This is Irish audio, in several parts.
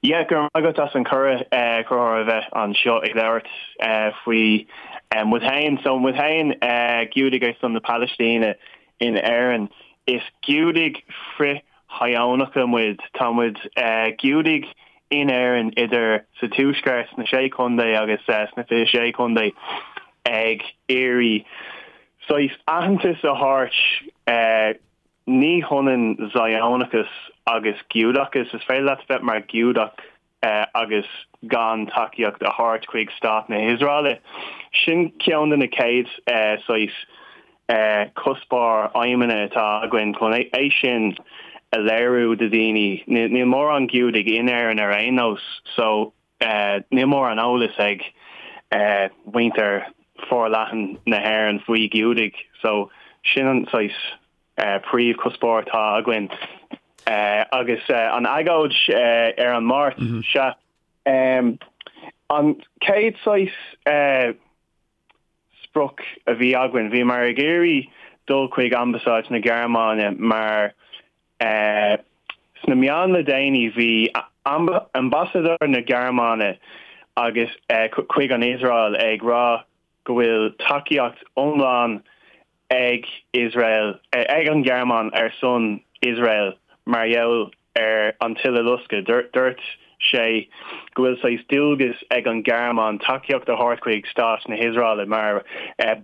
Yeah, go raibh maith agat as an cuireadh, Conchúr, a bheith anseo ag labhairt faoi muid féin. So muid féin, Giúdaigh ar son na Palaistíne in Éirinn, is Giúdaigh frith-Shíónacha muid. Tá muid Giúdaigh in Éirinn idir sa Tuaisceart, sna Sé Chontae agus sna 26 Contae ag iarraidh saghas aitheantas a thabhairt Ní hionann Zionachas agus Giúdachas. Is féidir leat bheith mar Ghiúdach agus gan tacaíocht a thabhairt chuig Stát na hIosraeile. Sin ceann de na chéad saghas cuspóir, aidhmeanna atá againn chun é sin a léiriú do dhaoine. Níl mórán Giúdaigh in Éirinn ar aon nós so níl mórán eolas ag muintir forleathan na hÉireann faoi Ghiúdaigh so sin an saghas príomhchuspóir atá againn. Agus an agóid ar an Máirt, sea, an chéad saghas sprioc a bhí againn, bhíomar ag iarraidh dul chuig Ambasáid na Gearmáine mar sna meáin le déanaí bhí Ambasadóir na Gearmáine agus chuig an Iosrael ag rá go bhfuil tacaíocht iomlán ag Iosrael, ag an Ghearmáin ar son Iosrael mar gheall ar an tUileloscadh. Dúirt sé go bhfuil saghas dualgas ag an Ghearmáin tacaíocht a thabhairt chuig stát na hIosraeile mar ó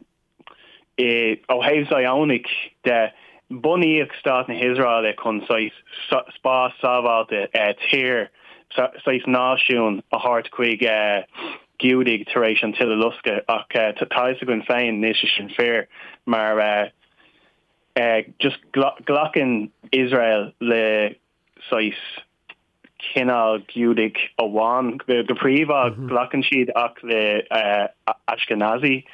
thaobh Zionach de, bunaíodh stát na hIosraeile chun saghas spás sábháilte, tír, saghas náisiún a thabhairt chuig Giúdaigh tar éis an tUileloscadh ach tá a fhios againn féin níl sé sin fíor mar just glacann Iosrael le saghas cineál Giúdaigh amháin go príomha, glacann siad ach le Ashkenazi,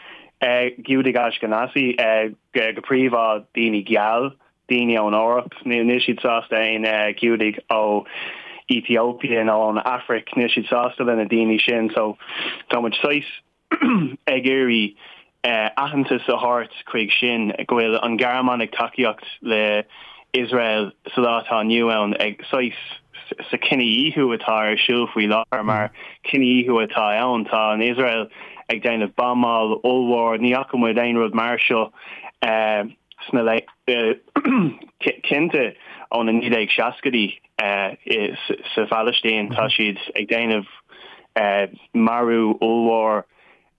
Giúdaigh Ashkenazi go príomha daoine geal, daoine ón Eoraip, níl siad sásta aon Ghiúdaigh ó Ethiopia nó ón Afraic, níl siad sásta le na daoine sin so tá muid saghas ag iarraidh aitheantas a thabhairt chuig sin, go bhfuil an Ghearmáin ag tacaíocht le Iosrael sa lá atá inniu ann ag saghas sa cinedhíothú atá ar siúl faoi láthair mar cinedhíothú atá ann. Tá an Iosrael ag déanamh buamáil ollmhór, ní fhaca muid aon rud mar seo sna cinnte ó na 1960idí sa Phalaistín. Tá siad ag déanamh marú ollmhór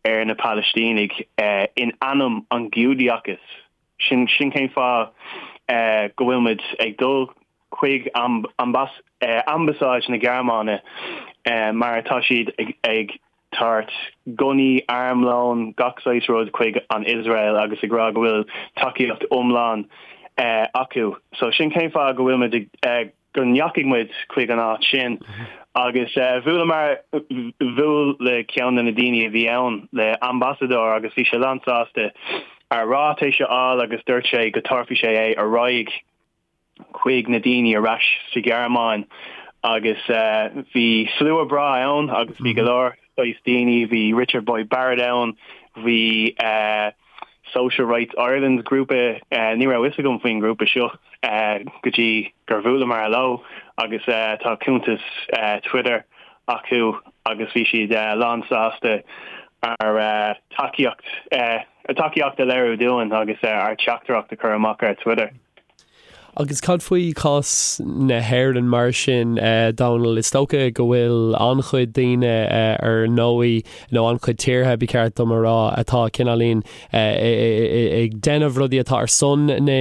ar na Palaistínigh in ainm an Ghiúdachais. Sin cén fáth go bhfuil muid ag dul chuig Ambasáid na Gearmáine mar tá siad ag tabhairt gunnaí, armlón, gach saghas rud chuig an Iosrael agus ag rá go bhfuil tacaíocht iomlán acu. So sin cén fáth go bhfuil muid ag, go ndeachaigh muid chuig an áit sin agus bhuaileamar, bhuail le ceann de na daoine a bhí ann, le ambasadóir agus bhí sé lán sásta ár ráitéis a fháil agus dúirt sé go dtabharfaidh sé é ar aghaidh. chuig na daoine ar ais sa Ghearmáin agus bhí slua breá ann agus bhí go leor saghas daoine, bhí Richard Boyd Barrett ann, bhí Social Rights Ireland grúpa, ní raibh fhios agam faoin ngrúpa seo go dtí gur bhuaileamar leo agus tá cuntas Twitter acu agus bhí siad lán sásta ár tacaíocht, a dtacaíocht a léiriú dúinn agus ár dteachtaireacht a chur amach ar Twitter. Agus cad faoi chás na hÉireann mar sin, Dónal? Is dócha go bhfuil an-chuid daoine ar ndóigh, nó an-chuid tíortha, ba cheart dom a rá, atá cineáilín ag déanamh rudaí atá ar son na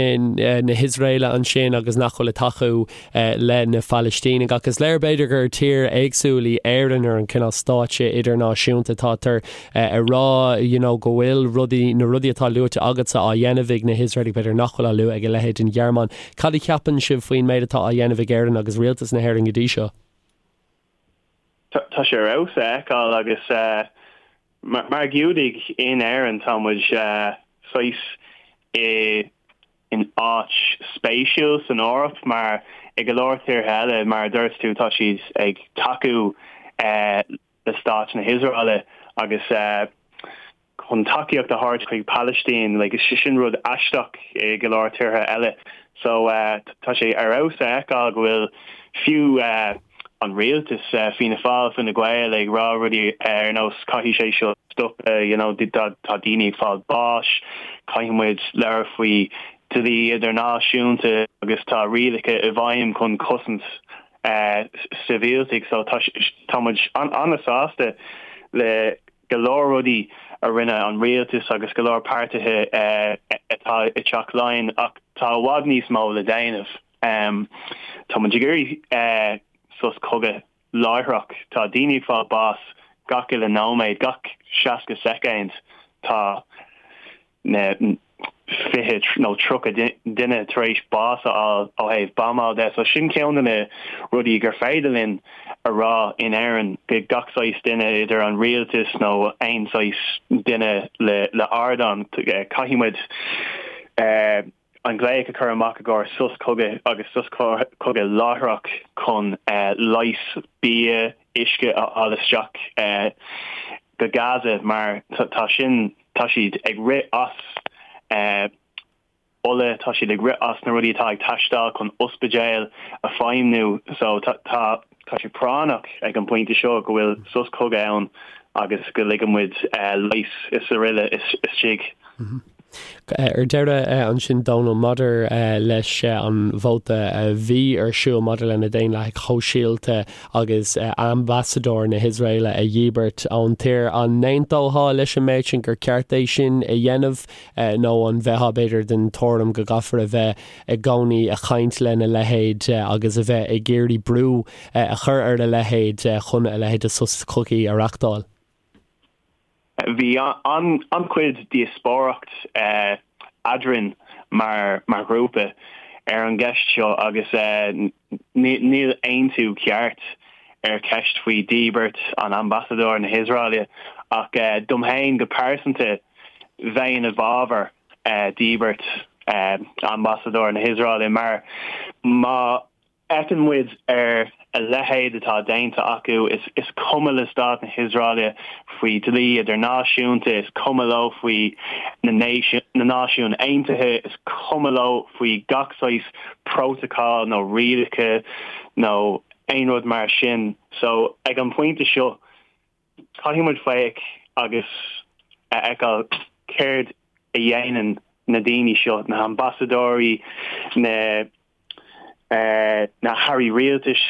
hIosraeile ansin agus nach bhfuil ag tacú le na Palaistínigh. Ach is léir b'fhéidir gur tír éagsúil í Éirinn ar an cineál stáitse idirnáisiúnta. Tátar ag rá you know go bhfuil rudaí, na rudaí atá luaite agatsa á dhéanamh ag na hIosraelaigh, b'fhéidir nach bhfuil á lua ag a leithéid den Ghearmáin. Cad a cheapann sibh faoin méid atá á dhéanamh ag Éirinn agus rialtas na hÉireann go dtí seo? Tá sé ar fheabhas a fheiceáil agus mar Ghiúdaigh in Éirinn tá muid saghas i in áit spéisiúil san Eoraip mar i go leor tíortha eile, mar a dúirt tú, tá siad ag tacú le stát na hIosraeile agus chun tacaíocht a thabhairt chuig Palaistín, like, sin rud aisteach i go leor tíortha eile. So tá sé ar fheabhas a fheiceáil go bhfuil fiú. an rialtas, Fianna Fáil, Fine Gael ag rá rudaí ar nós caithfidh sé seo stopadh, you know, tá daoine ag fáil báis, caithfidh muid labhairt faoi dlí idirnáisiúnta agus tá rialacha i bhfeidhm chun cosaint sibhialtaigh. So tá tá muid an-sásta le go leor rudaí a rinne an rialtas agus go leor páirtithe atá i dTeach Laighean ach tá i bhfad níos mó le déanamh. Tá muid ag iarraidh sos cogaidh láithreach. Tá daoine ag fáil bás gach uile nóiméad, gach 60 soicind tá na 20 nó 30 duine tar éis bás a fháil ó thaobh buamáil de. So sin ceann de na rudaí gur féidir linn a rá in Éirinn go gach saghas duine, idir an rialtas nó aon saghas duine le ardán, caithfidh muid an glaoch a chur amach i gcomhair sos cogaidh agus sos cogaidh láithreach chun leigheas, bia, uisce a fháil isteach go Gaza mar tá sin, tá siad ag rith as ola, tá siad ag rith as na rudaí atá ag teastáil chun ospidéil a feidhmniú so tá tá sé práinneach ag an bpointe seo go bhfuil sos cogaidh ann agus go ligeann muid leigheas is araile istigh. Ar deireadh ansin, Dónal, maidir leis an vóta a bhí ar siúl maidir le na Daonlathaigh Shóisialta agus ambasadóir na hIosraeile a dhíbirt ón tír, an n-aontófá leis an méid sin gur ceart é sin a dhéanamh nó an mbeifeá b'fhéidir den tuairim go gcaithfear a bheith i gcónaí ag caint lena leithéid agus a bheith ag iarraidh brú a chur ar a leithéid chun a leithéid de sos cogaidh a reachtáil? Bhí an-chuid díospóireacht eadrainn mar ghrúpa ar an gceist seo agus níl aontú ceart ar cheist faoi dhíbirt an ambasadóir na hIosraeile ach dom féin go pearsanta bheinn i bhfabhar díbirt ambasadóir na hIosraeile mar má fhéachann muid ar a leithéid atá déanta acu, is cuma le stát na hIosraeile faoi dlí idirnáisiúnta, is cuma leo faoi na Náisiúin Aontaithe, is cuma leo faoi gach saghas prótacal nó rialacha nó aon rud mar sin. So, ag an bpointe seo, caithfidh muid féach agus a fheiceáil céard a dhéanann na daoine seo, na hambasadóirí, na na hairí rialtais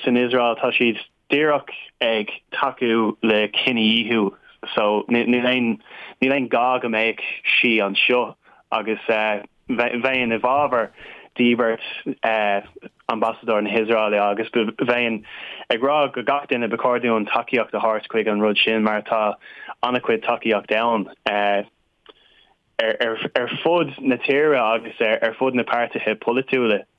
san Iosrael, tá siad díreach ag tacú le cinedhíothú so níl aon níl aon gá go mbeadh sí anseo agus bheinn i bhfabhar díbirt ambasadóir na hIosraeile agus bheinn ag rá go gach duine ba chóir dúinn tacaíocht a thabhairt chuig an rud sin mar tá an-chuid tacaíocht ann ar fud na tíre agus ar fud na páirtithe polaitiúla.